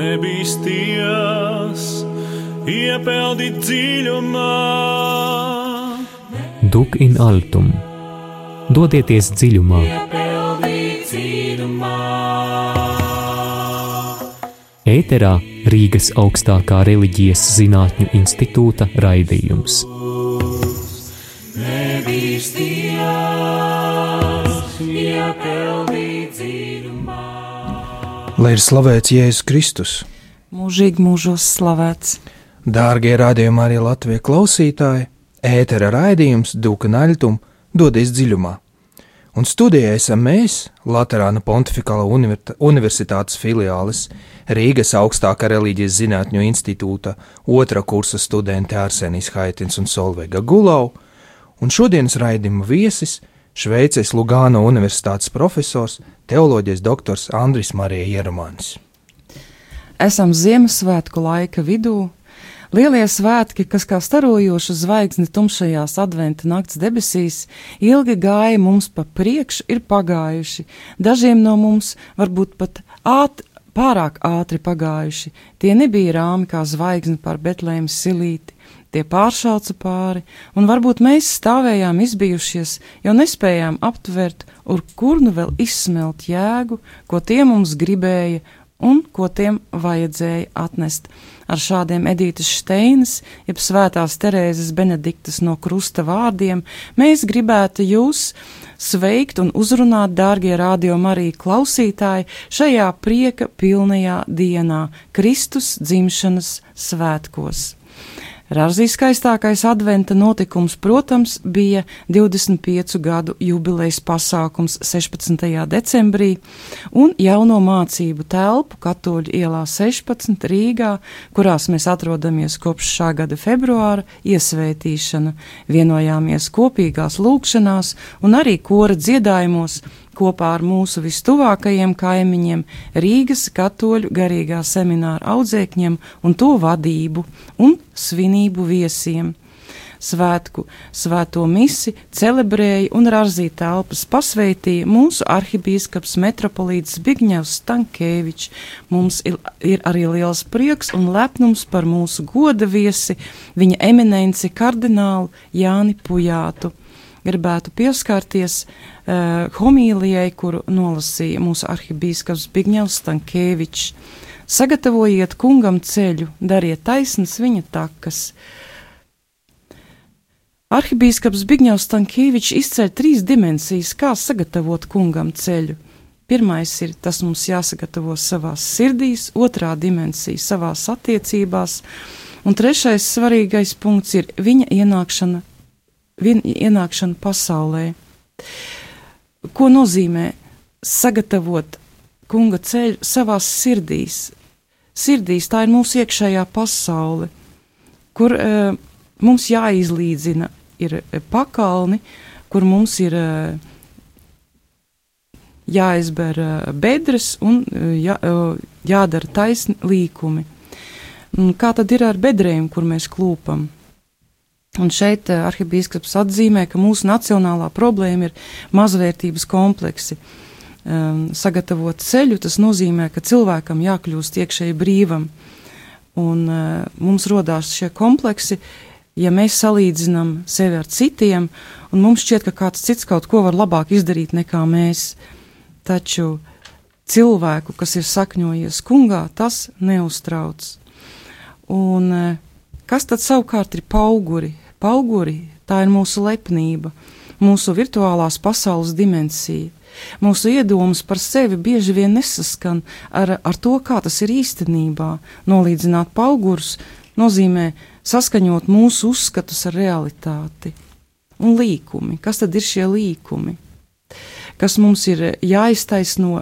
nebīsties, iepeldīt dziļumā. Duc in altum, dodieties dziļumā. Ēterā Rīgas augstākā reliģijas zinātņu institūta raidījums. Lai ir slavēts Jēzus Kristus. Mūžīgi mūžos slavēts. Dārgie radījuma arī Latvijas klausītāji, ētera raidījums Duc in altum, dodies dziļumā. Un studijā esam mēs, Laterāna Pontifikāla universitātes filiāles, Rīgas augstākā reliģijas zinātņu institūta otrā kursa studenti Arsenijs Haitins un Solveiga Gulau, un šodienas raidījuma viesis Šveices Lugāno universitātes profesors, teoloģijas doktors Andris Marija Ierumānis. Esam Ziemassvētku laika vidū. Lielie svētki, kas kā starojoša zvaigzne tumšajās adventa nakts debesīs, ilgi gāja mums pa priekšu, ir pagājuši. Dažiem no mums varbūt pat pārāk ātri pagājuši. Tie nebija rāmi kā zvaigzne pār Betlēmas silīti, tie pāršauca pāri, un varbūt mēs stāvējām izbijušies, jo nespējām aptvert, kur nu vēl izsmelt jēgu, ko tie mums gribēja un ko tiem vajadzēja atnest. Ar šādiem Edītes Šteinas, jeb Svētās Terēzes Benediktas no krusta vārdiem, mēs gribētu jūs sveikt un uzrunāt, dārgie Radio Marija klausītāji, šajā prieka pilnajā dienā, Kristus dzimšanas svētkos. Rāzī skaistākais adventa notikums, protams, bija 25 gadu jubilejas pasākums 16. decembrī un jauno mācību telpu Katoļu ielā 16 Rīgā, kurās mēs atrodamies kopš šā gada februāra, iesvētīšana. Vienojāmies kopīgās lūgšanās un arī kora dziedājumos kopā ar mūsu vistuvākajiem kaimiņiem, Rīgas katoļu garīgā semināra audzēkņiem un to vadību un svinību viesiem. Svēto misi celebrēja un Rāzī telpas pasveitīja mūsu arhibīskaps metropolīts Zbigņevs Stankēvičs. Mums ir arī liels prieks un lepnums par mūsu goda viesi, viņa eminenci kardinālu Jāni Pujātu. Gribētu pieskārties homīlijai, kuru nolasīja mūsu arhibīskaps Zbigņevs Stankēvičs. Sagatavojiet kungam ceļu, dariet taisnas viņa takas. Arhibīskaps Zbigņevs Stankēvičs izceļ 3 dimensijas, kā sagatavot kungam ceļu. Pirmais ir, tas mums jāsagatavo savās sirdīs, otrā dimensija savās attiecībās, un trešais svarīgais punkts ir viņa ienākšana pasaulē. Ko nozīmē sagatavot kunga ceļu savās sirdīs? Sirdīs tā ir mūsu iekšējā pasaule, kur mums jāizlīdzina ir pakalni, kur mums ir jāizber bedres un jādara taisni līkumi. Kā tad ir ar bedrēm, kur mēs klūpam? Un šeit arhibīskaps atzīmē, ka mūsu nacionālā problēma ir mazvērtības kompleksi. Sagatavot ceļu, tas nozīmē, ka cilvēkam jākļūst iekšēji brīvam. Un mums rodās šie kompleksi, ja mēs salīdzinām sevi ar citiem, un mums šķiet, ka kāds cits kaut ko var labāk izdarīt nekā mēs. Taču cilvēku, kas ir sakņojies kungā, tas neuztrauc. Un kas tad savukārt ir pauguri? Pauguri, tā ir mūsu lepnība, mūsu virtuālās pasaules dimensija. Mūsu iedomas par sevi bieži vien nesaskan ar to, kā tas ir īstenībā. Nolīdzināt paugurus nozīmē saskaņot mūsu uzskatus ar realitāti. Un līkumi, kas tad ir šie līkumi? Kas mums ir jāiztaisno,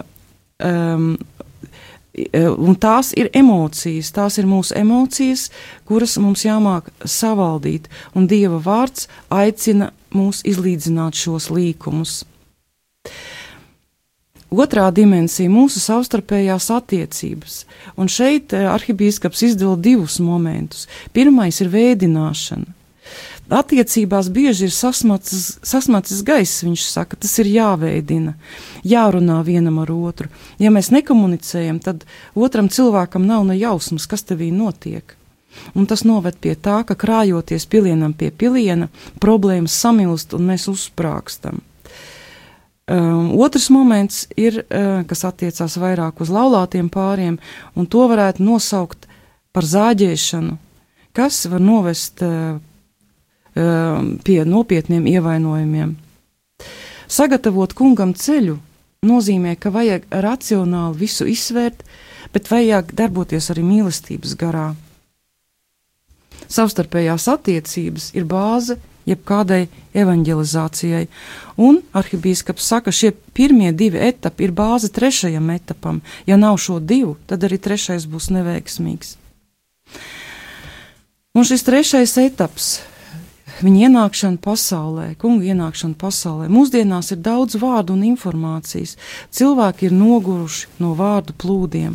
un tās ir emocijas, tās ir mūsu emocijas, kuras mums jāmāk savaldīt, un Dieva vārds aicina mūs izlīdzināt šos līkumus. Otrā dimensija - mūsu savstarpējās attiecības, un šeit arhibīskaps izdala 2 momentus. Pirmais ir vēdināšana. Attiecībās bieži ir sasmacis gaiss, viņš saka, tas ir jāveidina, jārunā vienam ar otru. Ja mēs nekomunicējam, tad otram cilvēkam nav ne jausmas, kas tevī notiek. Un tas noved pie tā, ka krājoties pilienam pie piliena, problēmas samilst un mēs uzsprāgstam. Otrs moments ir, kas attiecās vairāk uz laulātiem pāriem, un to varētu nosaukt par zāģēšanu, kas var novest pie nopietniem ievainojumiem. Sagatavot kungam ceļu nozīmē, ka vajag racionāli visu izsvērt, bet vajag darboties arī mīlestības garā. Savstarpējās attiecības ir bāze jebkādai evanģelizācijai, un arhibīskaps saka, šie pirmie 2 etapi ir bāze 3. etapam. Ja nav šo 2, tad arī 3. būs neveiksmīgs. Un šis 3. etaps, viņa ienākšana pasaulē, kunga ienākšana pasaulē, mūsdienās ir daudz vārdu un informācijas. Cilvēki ir noguruši no vārdu plūdiem.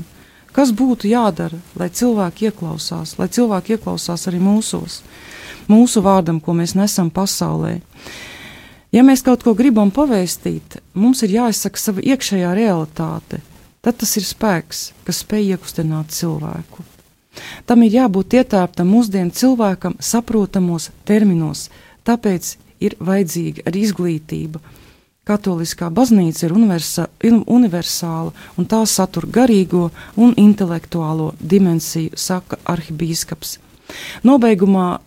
Kas būtu jādara, lai cilvēki ieklausās arī mūsu vārdam, ko mēs nesam pasaulē? Ja mēs kaut ko gribam pavēstīt, mums ir jāizsaka sava iekšējā realitāte. Tad tas ir spēks, kas spēj iekustināt cilvēku. Tam ir jābūt ietērptam mūsdienu cilvēkam saprotamos terminos, tāpēc ir vajadzīga arī izglītība. Katoliskā baznīca ir universāla, un tā satur garīgo un intelektuālo dimensiju, saka arhibīskaps. Nobeigumā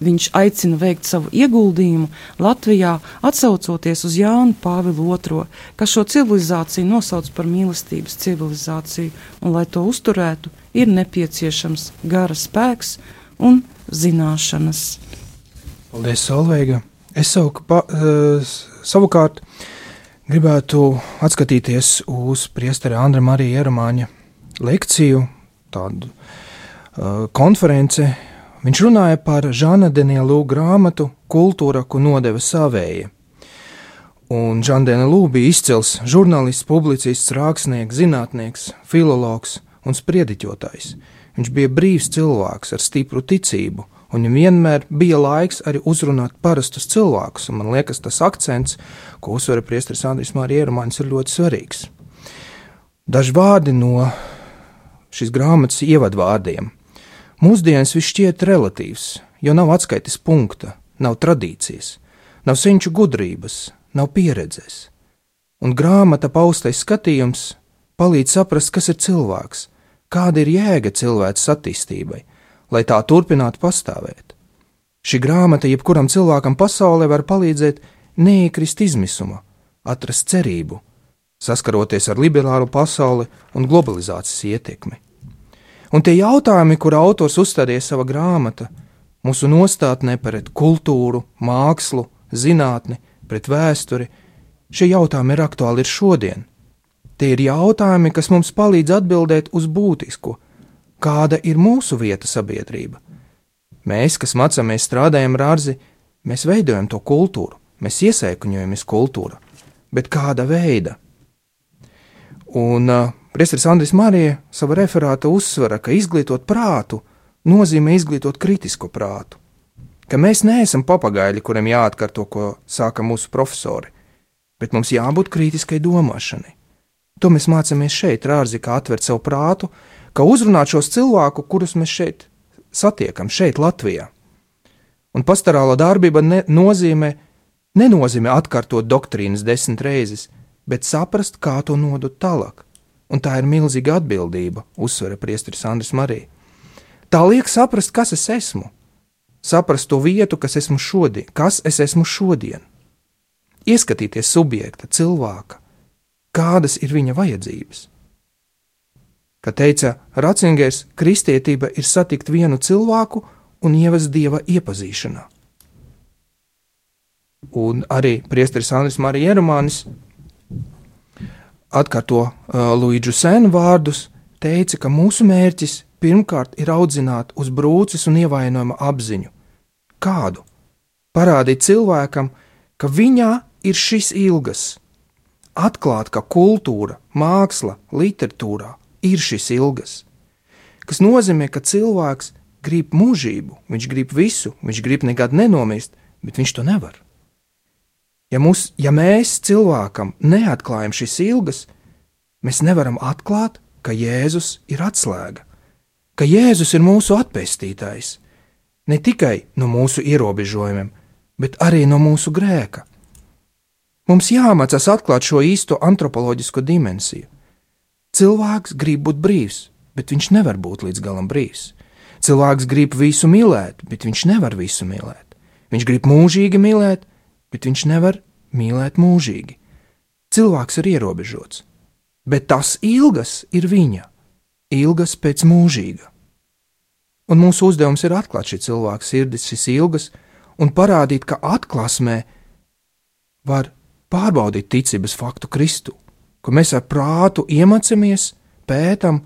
viņš aicina veikt savu ieguldījumu Latvijā, atsaucoties uz Jānu Pāvilu II, kas šo civilizāciju nosauc par mīlestības civilizāciju, un lai to uzturētu, ir nepieciešams gara spēks un zināšanas. Paldies, Solveiga! Es savukārt gribētu atskatīties uz priestera Andra Marija Ieromāņa lekciju, tādu konference. Viņš runāja par Žana Denielu grāmatu Kultūra, ko nodeva savēja. Un Žan Denielu bija izcils žurnālists, publicists, rakstnieks, zinātnieks, filologs un spriediķotājs. Viņš bija brīvs cilvēks ar stipru ticību, un viņam vienmēr bija laiks arī uzrunāt parastus cilvēkus, un man liekas, tas akcents, ko uzsver priesteris Andris Marija Ieromāņs, ir ļoti svarīgs. Daži vārdi no šīs grāmatas ievadvārdiem. Mūsdienas viss šķiet relatīvs, jo nav atskaites punkta, nav tradīcijas, nav senču gudrības, nav pieredzes. Un grāmata paustais skatījums palīdz saprast, kas ir cilvēks, kāda ir jēga cilvēces attīstībai, lai tā turpinātu pastāvēt. Šī grāmata jebkuram cilvēkam pasaulē var palīdzēt neiekrist izmisuma, atrast cerību, saskaroties ar liberālu pasauli un globalizācijas ietekmi. Un tie jautājumi, kur autors uzstādīja sava grāmata, mūsu nostātnē pret kultūru, mākslu, zinātni, pret vēsturi, šie jautājumi ir aktuāli ir šodien. Tie ir jautājumi, kas mums palīdz atbildēt uz būtisko, kāda ir mūsu vieta sabiedrība. Mēs, kas mācāmies, strādājam ar ārzi, mēs veidojam to kultūru, mēs iesēkuņojamies kultūra, bet kāda veida? Un priesteris Andris Marija sava referāta uzsvera, ka izglītot prātu nozīmē izglītot kritisko prātu, ka mēs neesam papagaļi, kuriem jāatkārto, ko sāka mūsu profesori, bet mums jābūt kritiskai domāšanai. To mēs mācāmies šeit, Rārzi, kā atvērt savu prātu, kā uzrunāt šos cilvēku, kurus mēs šeit satiekam, šeit Latvijā. Un pastorāla darbība nenozīmē atkārtot doktrīnas 10 reizes, bet saprast, kā to nodot tālāk. Un tā ir milzīga atbildība, uzsvera priesteris Andris Marija. Tā liek saprast, kas es esmu, saprast to vietu, kas es esmu šodien, ieskatīties subjekta, cilvēka, kādas ir viņa vajadzības. Kā teica Ratzingers, kristietība ir satikt vienu cilvēku un ievest Dieva iepazīšanā. Un arī priesteris Andris Marija Ieromānis atkārto Luīdžu Senu vārdus, teica, ka mūsu mērķis pirmkārt ir audzināt uz brūces un ievainojuma apziņu. Kādu? Parādīt cilvēkam, ka viņā ir šis ilgas. Atklāt, ka kultūra, māksla, literatūrā ir šis ilgas. Kas nozīmē, ka cilvēks grib mūžību, viņš grib visu, viņš grib nekad nenomist, bet viņš to nevar. Ja mēs cilvēkam neatklājam šīs ilgas, mēs nevaram atklāt, ka Jēzus ir atslēga, ka Jēzus ir mūsu atpestītājs, ne tikai no mūsu ierobežojumiem, bet arī no mūsu grēka. Mums jāmācās atklāt šo īsto antropoloģisko dimensiju. Cilvēks grib būt brīvs, bet viņš nevar būt līdz galam brīvs. Cilvēks grib visu mīlēt, bet viņš nevar visu mīlēt. Viņš grib mūžīgi mīlēt, bet viņš nevar mīlēt mūžīgi. Cilvēks ir ierobežots, bet tas ilgas ir viņa, ilgas pēc mūžīga. Un mūsu uzdevums ir atklāt šī cilvēka sirdis, šīs ilgas, un parādīt, ka atklāsmē var pārbaudīt ticības faktu Kristu, ka mēs ar prātu iemācāmies, pētam,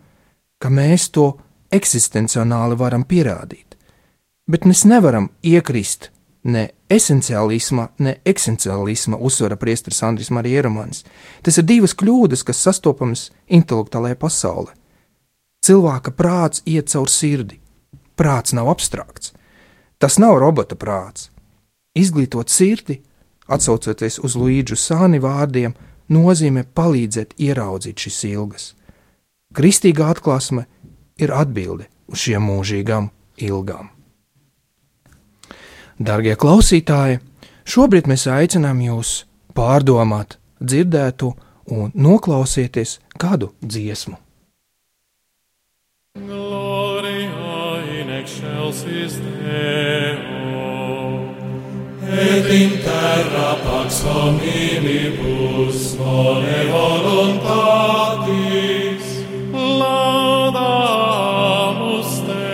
ka mēs to eksistencionāli varam pierādīt. Bet mēs nevaram iekrist ne esenciālisma, ne eksistenciālisma, uzsvera priesteris Andris Marija Ieromans. Tas ir divas kļūdas, kas sastopamas intelektuālajā pasaulē. Cilvēka prāts iet caur sirdi. Prāts nav abstrakts. Tas nav robota prāts. Izglītot sirdi, atsaucoties uz Luīdžu Sāni vārdiem, nozīmē palīdzēt ieraudzīt šīs ilgas. Kristīgā atklāsme ir atbilde uz šiem mūžīgām ilgām. Dargie klausītāji, šobrīd mēs aicinām jūs pārdomāt dzirdētu un noklausieties kādu dziesmu. Gloria in excelsis Deo, et in terra pax hominibus bone voluntatis, laudamus te,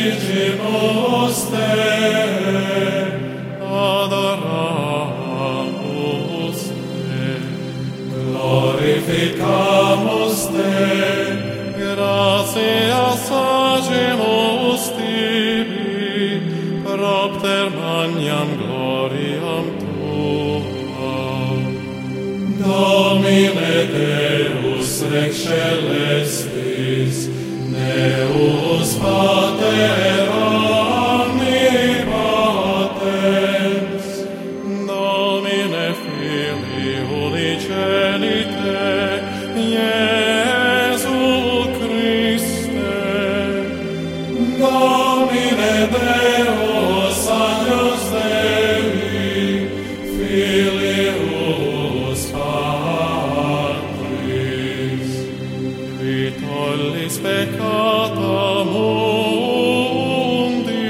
benedicimus te, adoramus te, glorificamus te, gratias agimus tibi, propter magnam gloriam tuam. Domine Deus rex celestis, Deus Pater omnipotens, Domine Filii unigenite, Iesu Christe, Domine Deus agnus Dei, Filius Patris, qui tollis peccata mundi,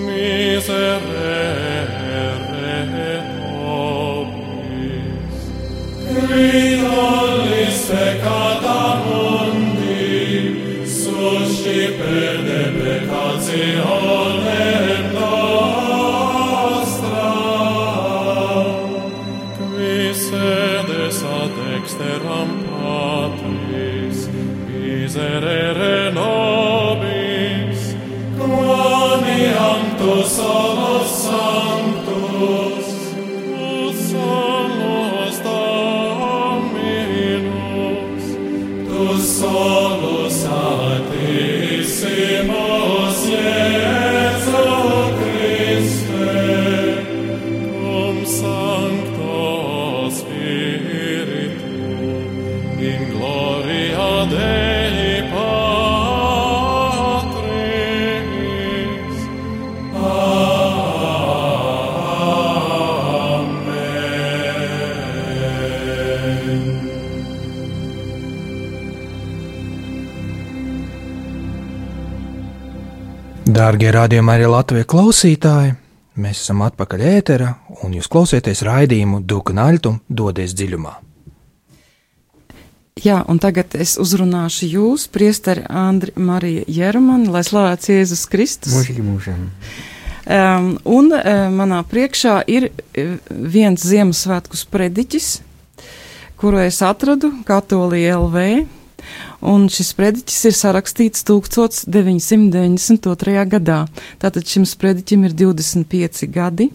miserere nobis. qui tollis peccata mundi, suscipe deprecationem nostra, Qui sedes ad dexteram Patris, miserere nobis, quoniam tu solus sanctus, tu solus Dominus, tu solus altissimus Iesu Christe, cum Sancto Spiritu, in gloria Dei Patris. Amen. Dārgie radījuma arī Latvijas klausītāji, mēs esam atpakaļ ēterā, un jūs klausieties raidījumu Duknaļtum dodies dziļumā. Jā, un tagad es uzrunāšu jūs, priesteri Andri Marija Ieromani, lai slavēts Jēzus Kristus. Mūžīgi mūžam. Manā priekšā ir viens Ziemassvētku sprediķis, kuru es atradu Katolija LV, un šis sprediķis ir sarakstīts 1992. gadā. Tātad šim sprediķim ir 25 gadi,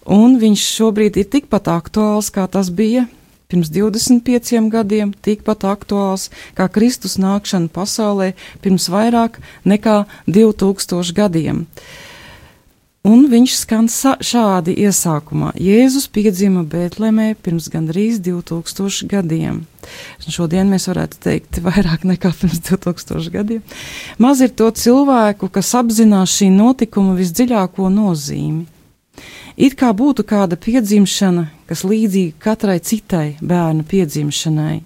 un viņš šobrīd ir tikpat aktuāls, kā tas bija pirms 25 gadiem, tikpat aktuāls kā Kristus nākšana pasaulē pirms vairāk nekā 2000 gadiem. Un viņš skan šādi iesākumā. Jēzus piedzima Bētlemē pirms gandrīz 2000 gadiem. Šodien mēs varētu teikt vairāk nekā pirms 2000 gadiem. Maz ir to cilvēku, kas apzinās šī notikuma visdziļāko nozīmi. It kā būtu kāda piedzimšana, kas līdzīga katrai citai bērna piedzimšanai.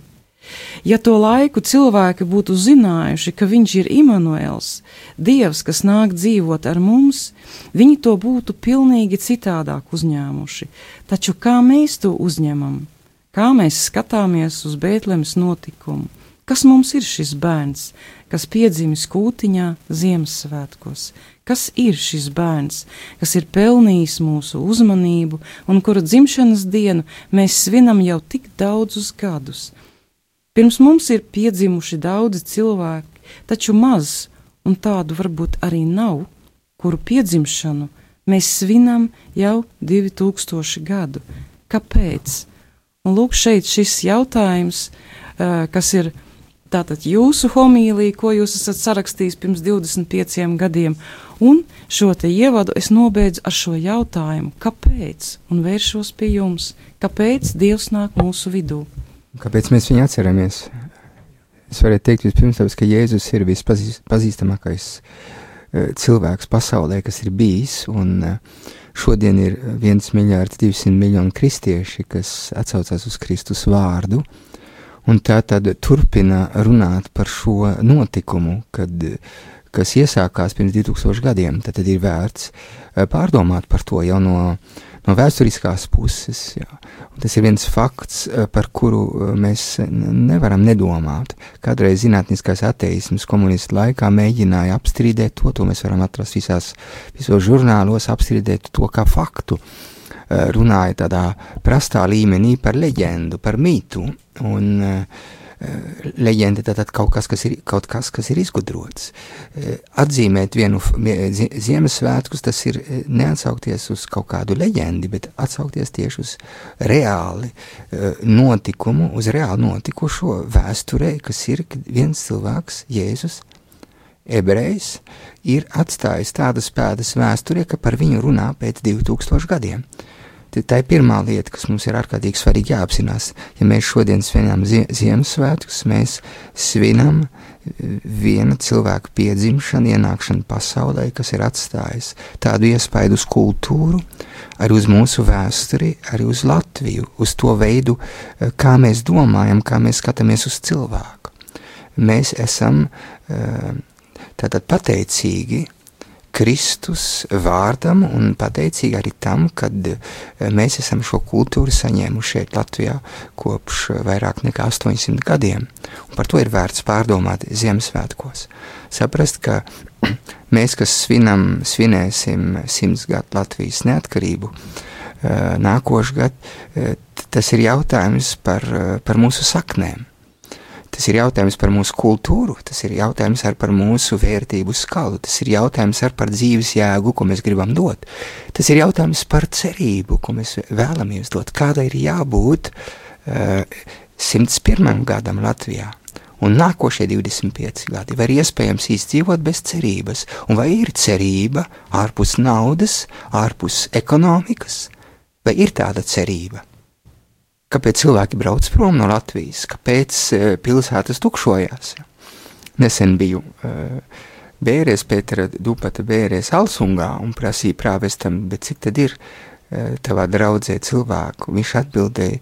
Ja to laiku cilvēki būtu zinājuši, ka viņš ir Imanuels, Dievs, kas nāk dzīvot ar mums, viņi to būtu pilnīgi citādāk uzņēmuši. Taču kā mēs to uzņemam? Kā mēs skatāmies uz Bētlemes notikumu? Kas mums ir šis bērns, kas piedzimis kūtiņā Ziemassvētkos? Kas ir šis bērns, kas ir pelnījis mūsu uzmanību un kura dzimšanas dienu mēs svinam jau tik daudzus gadus? Pirms mums ir piedzimuši daudzi cilvēki, taču maz, un tādu varbūt arī nav, kuru piedzimšanu mēs svinam jau 2000 gadu. Kāpēc? Un lūk, šeit šis jautājums, kas ir tātad jūsu homīlija, ko jūs esat sarakstījis pirms 25 gadiem, un šo te ievadu es nobeidzu ar šo jautājumu, kāpēc, un vēršos pie jums, kāpēc Dievs nāk mūsu vidū? Kāpēc mēs viņu atceramies? Es varētu teikt vispirms, ka Jēzus ir vispazīstamākais cilvēks pasaulē, kas ir bijis, un šodien ir 1,2 miljārdi kristieši, kas atsaucās uz Kristus vārdu, un tā tad turpina runāt par šo notikumu, kas iesākās pirms 2000 gadiem, tad ir vērts pārdomāt par to jau no vēsturiskās puses. Jā. Un tas ir viens fakts, par kuru mēs nevaram nedomāt. Kādreiz zinātniskais ateisms komunistu laikā mēģināja apstrīdēt to mēs varam atrast visos žurnālos, apstrīdēt to kā faktu. Runāja tādā prastā līmenī par leģendu, par mītu, un leģenda tātad kaut kas, kas ir izgudrots. Atzīmēt vienu Ziemassvētkus, tas ir neatsaukties uz kaut kādu leģendi, bet atsaukties tieši uz reāli notikumu, uz reāli notikušo vēsturē, kas ir viens cilvēks, Jēzus, ebrejs, ir atstājis tādas pēdas vēsturē, ka par viņu runā pēc 2000 gadiem. Tā ir pirmā lieta, kas mums ir ārkārtīgi svarīgi jāapzinās. Ja mēs šodien svinām Ziemassvētkus, mēs svinam viena cilvēka piedzimšanu, ienākšanu pasaulē, kas ir atstājis tādu iespaidu uz kultūru, arī uz mūsu vēsturi, arī uz Latviju, uz to veidu, kā mēs domājam, kā mēs skatāmies uz cilvēku. Mēs esam tātad pateicīgi Kristus vārdam un pateicīgi arī tam, kad mēs esam šo kultūru saņēmuši šeit Latvijā kopš vairāk nekā 800 gadiem. Un par to ir vērts pārdomāt Ziemassvētkos. Saprast, ka mēs, kas svinēsim 100 gadu Latvijas neatkarību, nākošu gadu, tas ir jautājums par mūsu saknēm. Tas ir jautājums par mūsu kultūru, tas ir jautājums par mūsu vērtību skalu, tas ir jautājums par dzīves jēgu, ko mēs gribam dot. Tas ir jautājums par cerību, ko mēs vēlamies dot, kāda ir jābūt 101. gadam Latvijā. Un nākošie 25 gadi var iespējams izdzīvot bez cerības. Un vai ir cerība ārpus naudas, ārpus ekonomikas? Vai ir tāda cerība? Kāpēc cilvēki brauc prom no Latvijas? Kāpēc pilsētas tukšojās? Nesen biju Bērēs, Pētera Dupata Bērēs Alsungā un prasīja prāvestam, bet cik tad ir tavā draudzē cilvēku? Viņš atbildēja,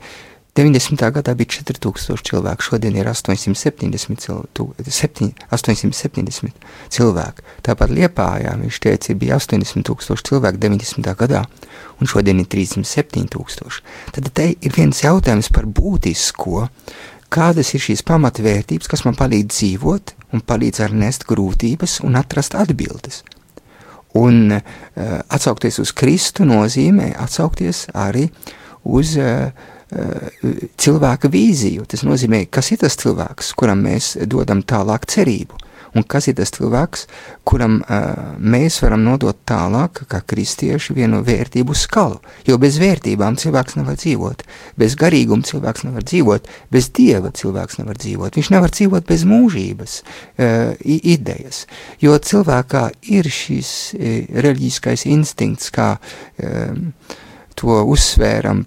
90. gadā bija 4000 cilvēku, šodien ir 870 cilvēku. Tāpat Liepājā, viņš teica, bija 80,000 cilvēku 90. gadā, un šodien ir 37,000. Tad te ir viens jautājums par būtisko, kādas ir šīs pamatvērtības, kas man palīdz dzīvot un palīdz ar nest grūtības un atrast atbildes. Un atsaukties uz Kristu nozīmē atsaukties arī uz cilvēka vīziju. Tas nozīmē, kas ir tas cilvēks, kuram mēs dodam tālāk cerību. un kas ir tas cilvēks, kuram mēs varam nodot tālāk, kā kristieši, vienu vērtību skalu, jo bez vērtībām cilvēks nevar dzīvot, bez garīguma cilvēks nevar dzīvot, bez Dieva cilvēks nevar dzīvot, viņš nevar dzīvot bez mūžības idejas, jo cilvēkā ir šis reliģiskais instinkts, kā to uzsvēram,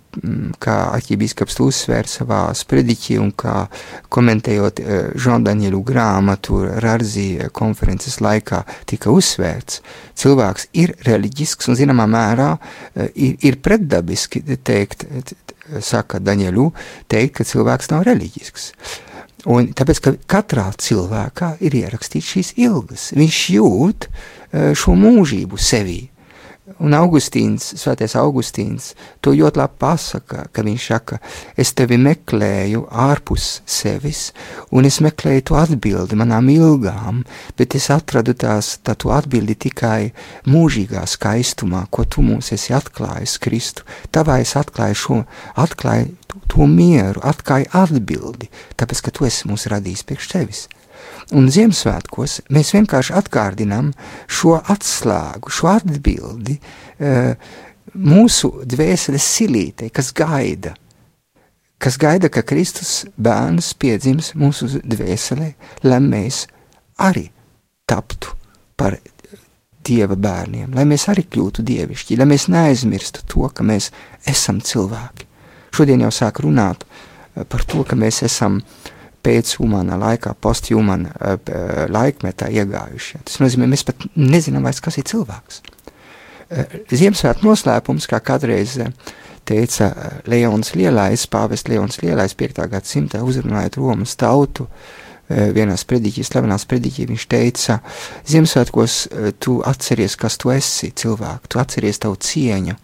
kā arķibīskaps to uzsvēra savā sprediķī un kā komentējot Jean-Danielu grāmatu Rarzi konferences laikā tika uzsvērts. Cilvēks ir reliģisks un zināmā mērā ir pretdabiski teikt, saka Danielu, teikt, ka cilvēks nav reliģisks. Un tāpēc, ka katrā cilvēkā ir ierakstīts šīs ilgas. Viņš jūt šo mūžību sevī. Un Svētais Augustīns to ļoti labi pasaka, ka viņš saka, es tevi meklēju ārpus sevis, un es meklēju to atbildi manām ilgām, bet es atradu to atbildi tikai mūžīgā skaistumā, ko tu mums esi atklājis, Kristu. Tavā es atklāju to mieru, atklāju atbildi, tāpēc, ka tu esi mūs radījis priekš tevis. Un Ziemassvētkos mēs vienkārši atgādinām šo atslēgu, šo atbildi mūsu dvēseles silītei, kas gaida, ka Kristus bērns piedzims mūsu dvēselē, lai mēs arī taptu par Dieva bērniem, lai mēs arī kļūtu dievišķi, lai mēs neaizmirstu to, ka mēs esam cilvēki. Šodien jau sāk runāt par to, ka mēs esam pēc humānā laikā, post-humāna laikmetā iegājuši. Tas nozīmē, mēs pat nezinām vairs, kas ir cilvēks. Ziemassvētku noslēpums, kā kādreiz teica Leons Lielais, pāvests Leons Lielais 5. gadsimtā uzrunājot Romas tautu, vienā sprediķī, slavenā sprediķī, viņš teica, Ziemassvētkos tu atceries, kas tu esi, cilvēku, tu atceries tavu cieņu,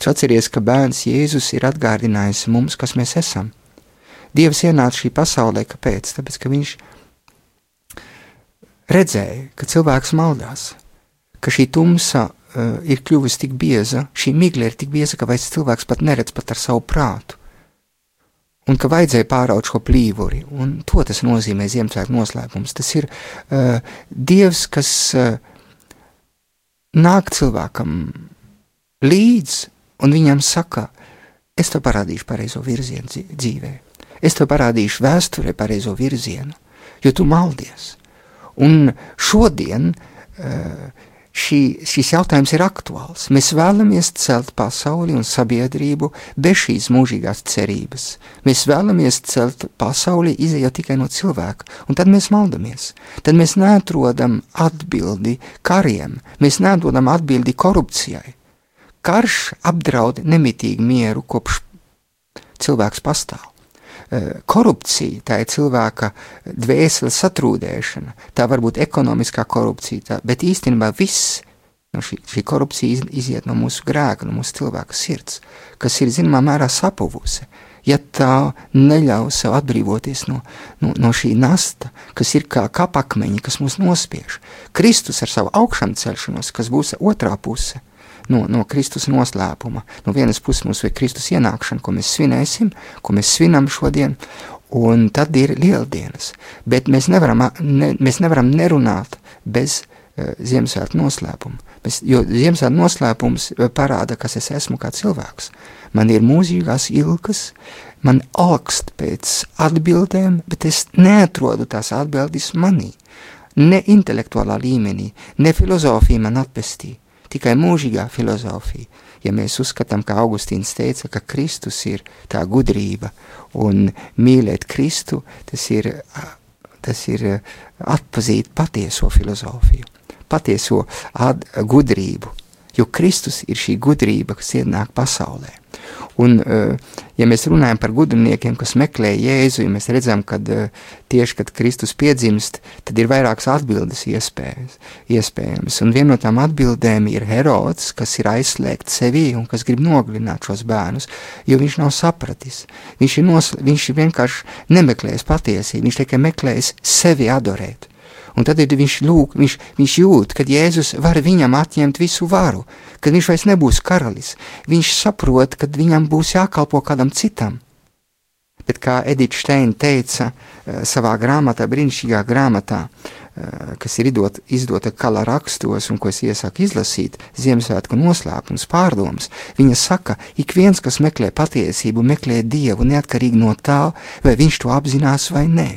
tu atceries, ka bērns Jēzus ir atgādinājis mums, kas mēs esam. Dievs ienāca šī pasaulē, kāpēc? Tāpēc, ka viņš redzēja, ka cilvēks maldās, ka šī tumsa ir kļuvusi tik bieza, šī migla ir tik bieza, ka vairs cilvēks pat neredz pat ar savu prātu, un ka vajadzēja pāraut šo plīvuri, un to tas nozīmē Ziemassvētku noslēpums. Tas ir Dievs, kas nāk cilvēkam līdz, un viņam saka, es tev parādīšu pareizo virzienu dzīvē. Es tev parādīšu vēsturē pareizo virzienu, jo tu maldies. Un šodien šis jautājums ir aktuāls. Mēs vēlamies celt pasauli un sabiedrību bez šīs mūžīgās cerības. Mēs vēlamies celt pasauli izējot tikai no cilvēka, un tad mēs maldamies. Tad mēs neatrodam atbildi kariem, mēs neatrodam atbildi korupcijai. Karš apdraud nemitīgi mieru, kopš cilvēks pastāv. Korupcija, tā ir cilvēka dvēseles satrūdēšana, tā var būt ekonomiskā korupcija, bet īstenībā viss šī korupcija iziet no mūsu grēka, no mūsu cilvēka sirds, kas ir zināmā mērā sapuvusi, ja tā neļauj sev atbrīvoties no šī nasta, kas ir kā kapakmeņi, kas mūs nospiež. Kristus ar savu augšām celšanos, kas būs otrā puse, no Kristus noslēpuma. No vienas puses mums ir Kristus ienākšana, ko mēs svinēsim, ko mēs svinam šodien, un tad ir lieldienas. Bet mēs nevaram nerunāt bez Ziemassvētku noslēpuma. Jo Ziemassvētku noslēpums parāda, kas es esmu kā cilvēks. Man ir mūžīgās ilgas, man augst pēc atbildēm, bet es neatrodu tās atbildes manī. Ne intelektuālā līmenī, ne filozofija man atpestī. Tikai mūžīgā filozofija. Ja mēs uzskatām, kā Augustīns teica, ka Kristus ir tā gudrība, un mīlēt Kristu, tas ir atpazīt patieso filozofiju, patieso gudrību, jo Kristus ir šī gudrība, kas ienāk pasaulē. Un, ja mēs runājam par gudrniekiem, kas meklē Jēzu, ja mēs redzam, kad tieši, kad Kristus piedzimst, tad ir vairākas atbildes iespējams. Un viena no tām atbildēm ir Herods, kas ir aizslēgts sevī un kas grib nogalināt šos bērnus, jo viņš nav sapratis. Viņš vienkārši nemeklēs patiesību, viņš tikai meklēs sevi adorēt. Un tad viņš jūt, kad Jēzus var viņam atņemt visu varu, kad viņš vairs nebūs karalis. Viņš saprot, kad viņam būs jākalpo kādam citam. bet kā Edita Steina teica savā grāmatā, brīnišķīgā grāmatā, kas ir izdota Kala rakstos un ko es iesaku izlasīt, Ziemassvētku noslēpums, pārdomas, viņa saka, ik viens, kas meklē patiesību, meklē Dievu neatkarīgi no tā, vai viņš to apzinās vai nē.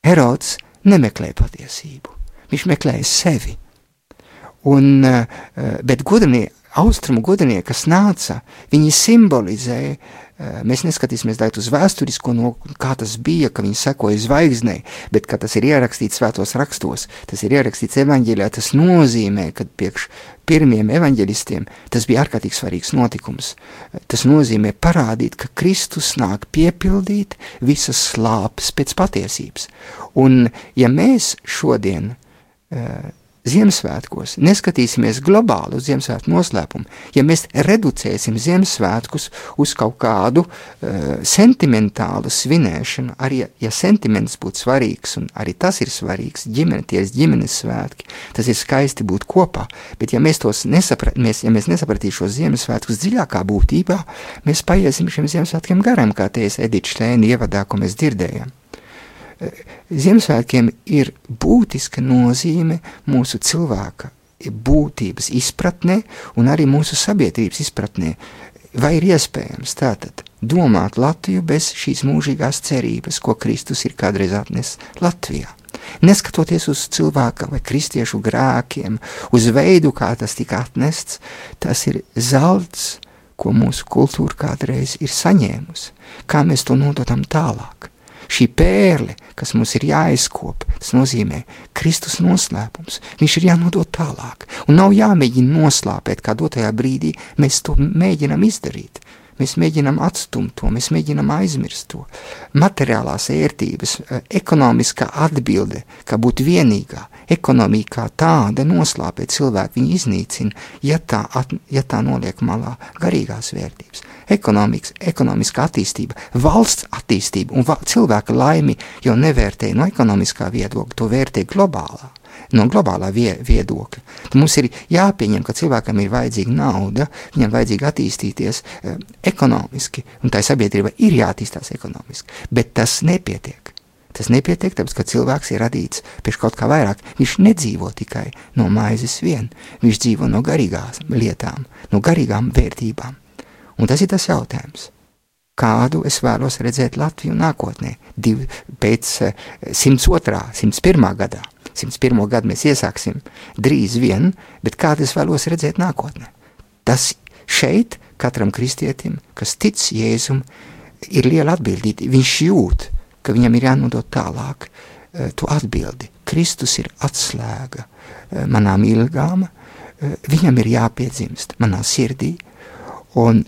Herods nemeklē patiesību, viņš meklēja sevi. Bet austrumu gudrinieki, kas nāca, viņi simbolizēja, mēs neskatīsimies tagad uz vēsturisko, kā tas bija, ka viņi sekoja zvaigznei, bet kā tas ir ierakstīts svētos rakstos, tas ir ierakstīts evaņģēlijā, tas nozīmē, ka priekš pirmiem evaņģelistiem tas bija ārkārtīgi svarīgs notikums. Tas nozīmē parādīt, ka Kristus nāk piepildīt visas slāpes pēc patiesības. Un ja mēs šodien Ziemassvētkos neskatīsimies globāli uz Ziemassvētku noslēpumu, ja mēs reducēsim Ziemassvētkus uz kaut kādu sentimentālu svinēšanu, arī ja sentiments būtu svarīgs, un arī tas ir svarīgs, ģimenes svētki, tas ir skaisti būt kopā, bet ja mēs nesapratīsim šos Ziemassvētkus dziļākā būtībā, mēs paiesim šiem Ziemassvētkiem garām, kā teica Edita Steina ievadā, ko mēs dzirdējām. Ziemassvētkiem ir būtiska nozīme mūsu cilvēka būtības izpratnē un arī mūsu sabiedrības izpratnē. Vai ir iespējams tātad domāt Latviju bez šīs mūžīgās cerības, ko Kristus ir kādreiz atnesis Latvijā? Neskatoties uz cilvēka vai kristiešu grēkiem, uz veidu, kā tas tika atnests, tas ir zelts, ko mūsu kultūra kādreiz ir saņēmusi. Kā mēs to nododam tālāk? Šī pērle, kas mums ir jāizkop, tas nozīmē Kristus noslēpums. Viņš ir jānodot tālāk. Un nav jāmēģina noslāpēt, kā dotajā brīdī mēs to mēģinam izdarīt. Mēs mēģinam atstumt to, mēs mēģinam aizmirst to. Materiālās ērtības, ekonomiskā atbilde, kā būt vienīgā, ekonomika kā tāda noslāpē cilvēku, viņu iznīcina, ja tā noliek malā garīgās vērtības. Ekonomiskā attīstība, valsts attīstība un cilvēka laimi jau nevērtē no ekonomiskā viedokļa, to vērtē no globālā viedokļa. Tad mums ir jāpieņem, ka cilvēkam ir vajadzīga nauda, viņam vajadzīga attīstīties ekonomiski, un tā sabiedrība ir jāattīstās ekonomiski, bet tas nepietiek. Tas nepietiek, tāpēc, ka cilvēks ir radīts pēc kaut kā vairāk. Viņš nedzīvo tikai no maizes vien, viņš dzīvo no garīgām lietām, no garīgām vērtībām. Un tas ir tas jautājums, kādu es vēlos redzēt Latviju nākotnē, pēc 102., 101. gadā. 101. gadu mēs iesāksim drīz vien, bet kādu es vēlos redzēt nākotnē. Tas šeit katram kristietim, kas tic Jēzum, ir liela atbildība. Viņš jūt, ka viņam ir jānodot tālāk to atbildi. Kristus ir atslēga manām ilgām, viņam ir jāpiedzimst manā sirdī, un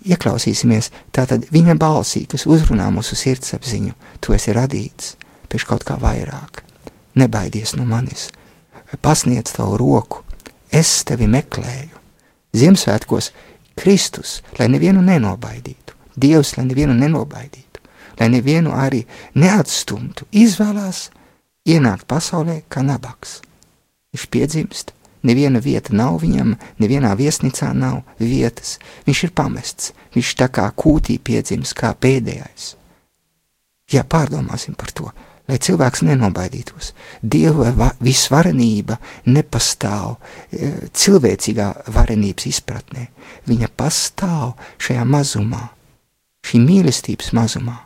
ieklausīsimies tātad viņa balsī, kas uzrunā mūsu sirdsapziņu. Tu esi radīts pēc kaut kā vairāk. Nebaidies no manis, pasniedz tavu roku, es tevi meklēju. Ziemassvētkos Kristus, lai nevienu nenobaidītu, Dievs, lai nevienu nenobaidītu, lai nevienu arī neatstumtu, izvēlās ienākt pasaulē kā nabaks. Viņš piedzimst, neviena vieta nav viņam, nevienā viesnīcā nav vietas, viņš ir pamests, viņš tā kā kūtī piedzimst, kā pēdējais. Jā, pārdomāsim par to, lai cilvēks nenobaidītos. Dieva visvarenība nepastāv cilvēcīgā varenības izpratnē. Viņa pastāv šajā mazumā, šī mīlestības mazumā.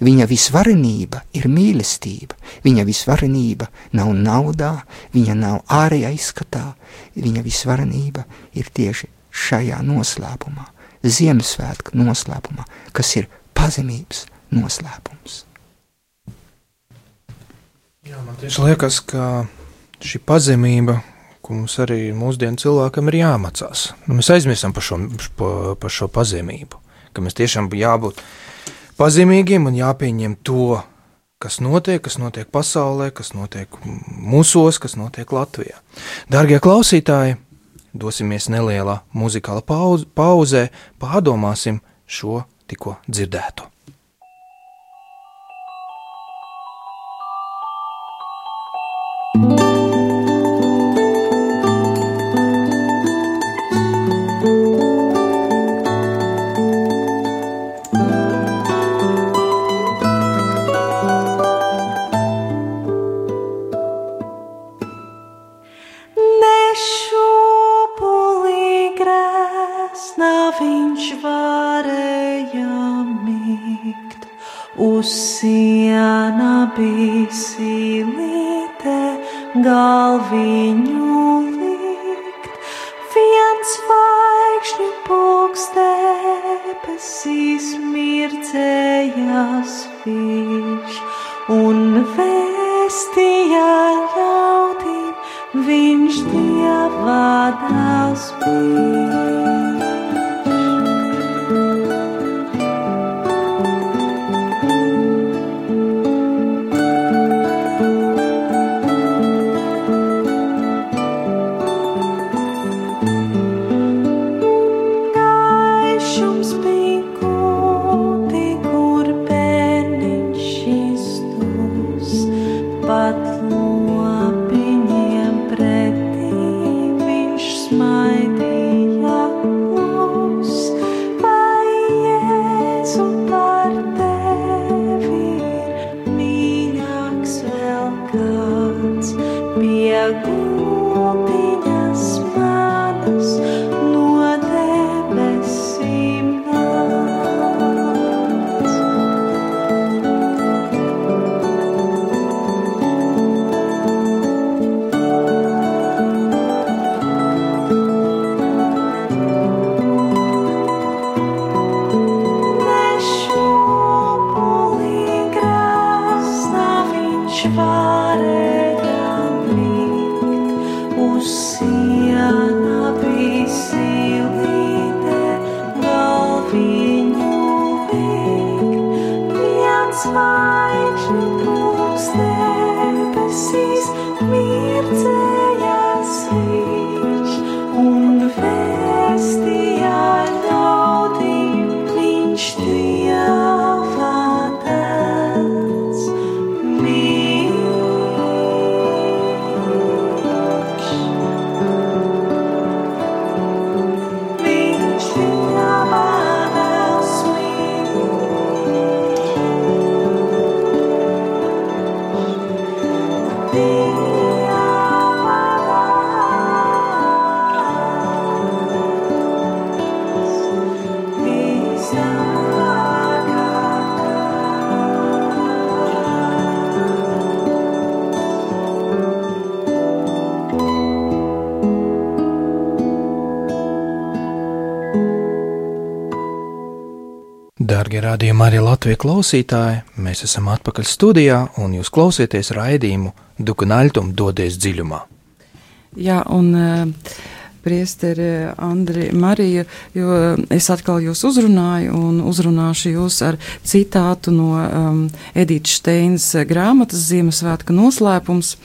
Viņa visvarenība ir mīlestība. Viņa visvarenība nav naudā, viņa nav ārējā izskatā. Viņa visvarenība ir tieši šajā noslēpumā, Ziemassvētku noslēpumā, kas ir pazemības noslēpums. Jā, man tieši liekas, ka šī pazemība, ko mums arī mūsdienu cilvēkam ir jāmācās. Mēs aizmirstam par šo pazemību, ka mēs tiešām jābūt pazemīgiem un jāpieņem to, kas notiek pasaulē, kas notiek mūsos, kas notiek Latvijā. Dārgie klausītāji, dosimies nelielā muzikāla pauzē, pārdomāsim šo tikko dzirdēto. uz siena bija silīte, galviņu likt, viens zvaigžņu pulks debesīs mirdzējās viņš, un vēstīja ļaudīm, viņš Dieva dēls bija. Dārgie radījuma arī Latvijas klausītāji, mēs esam atpakaļ studijā un jūs klausieties raidījumu Dukunaļtum dodies dziļumā. Jā, un priesteri Andri Marija, jo es atkal jūs uzrunāju un uzrunāšu jūs ar citātu no Edītas Šteinas grāmatas Ziemassvētku noslēpums.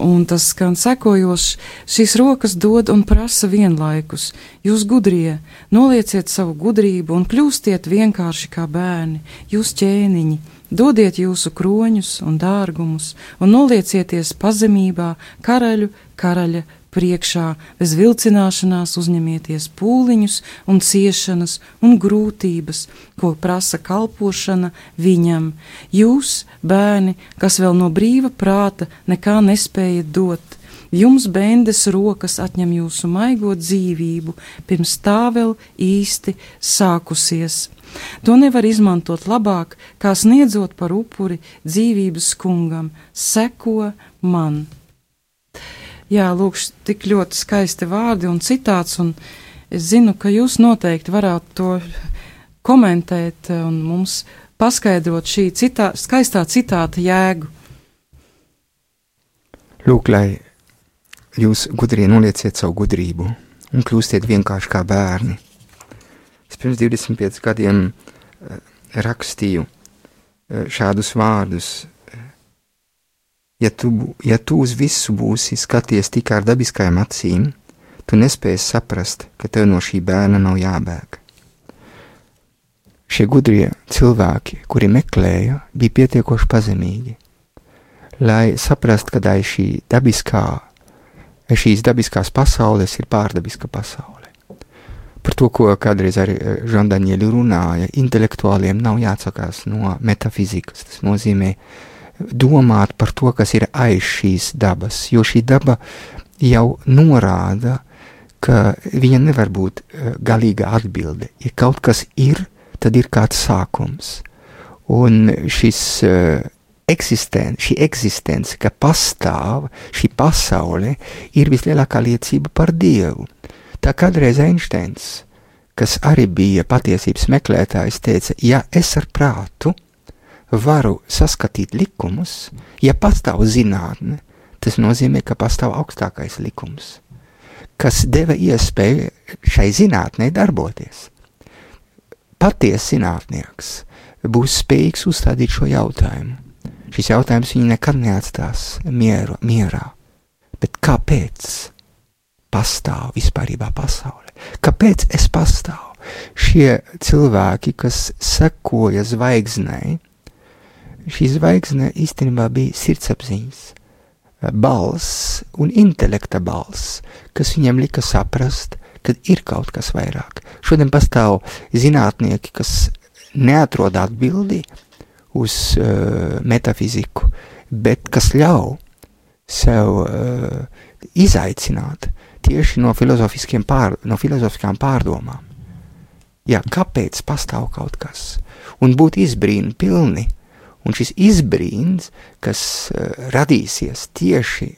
Un tas skan sekojoši: šīs rokas dod un prasa vienlaikus. Jūs gudrie, nolieciet savu gudrību un kļūstiet vienkārši kā bērni. Jūs ķēniņi, dodiet jūsu kroņus un dārgumus un noliecieties pazemībā karaļa priekšā, bez vilcināšanās uzņemieties pūliņus un ciešanas un grūtības, ko prasa kalpošana viņam. Jūs, bērni, kas vēl no brīva prāta nekā nespējat dot, jums bendes rokas atņem jūsu maigo dzīvību, pirms tā vēl īsti sākusies. To nevar izmantot labāk, kā sniedzot par upuri dzīvības kungam. Seko man. Jā, lūk, tik ļoti skaisti vārdi un citāts, un es zinu, ka jūs noteikti varētu to komentēt un mums paskaidrot šī skaistā citāta jēgu. Lūk, lai jūs gudrie nolieciet savu gudrību un kļūstiet vienkārši kā bērni. Es pirms 25 gadiem rakstīju šādus vārdus. Ja tu uz visu būsi skaties tikai ar dabiskajām acīm, tu nespēsi saprast, ka tev no šī bērna nav jābēg. Šie gudrie cilvēki, kuri meklēja, bija pietiekoši pazemīgi, lai saprast, ka šīs dabiskās pasaules ir pārdabiska pasaule. Par to, ko kādreiz arī Žandaņieļi runāja, intelektuāliem nav jāatsakās no metafizikas. Tas nozīmē domāt par to, kas ir aiz šīs dabas, jo šī daba jau norāda, ka viņa nevar būt galīga atbilde. Ja kaut kas ir, tad ir kāds sākums. Un šī eksistence, ka pastāv šī pasaule, ir vislielākā liecība par Dievu. Tā kādreiz Einsteins, kas arī bija patiesības meklētājs, teica, ja es ar prātu varu saskatīt likumus, ja pastāv zinātne, tas nozīmē, ka pastāv augstākais likums, kas deva iespēju šai zinātnei darboties. Patiesa zinātnieks būs spējīgs uzstādīt šo jautājumu. Šis jautājums viņu nekad neatstās mierā. Bet kāpēc pastāv vispārībā pasaule? Kāpēc es pastāvu? Šie cilvēki, kas sekoja zvaigznei, šī zvaigzne īstenībā bija sirdsapziņas balss un intelekta balss, kas viņam lika saprast, kad ir kaut kas vairāk. Šodien pastāv zinātnieki, kas neatrod atbildi uz metafiziku, bet kas ļauj sev izaicināt tieši no filozofiskām pārdomām. Jā, kāpēc pastāv kaut kas? Un būt izbrīnu pilni. Un šis izbrīns, kas radīsies tieši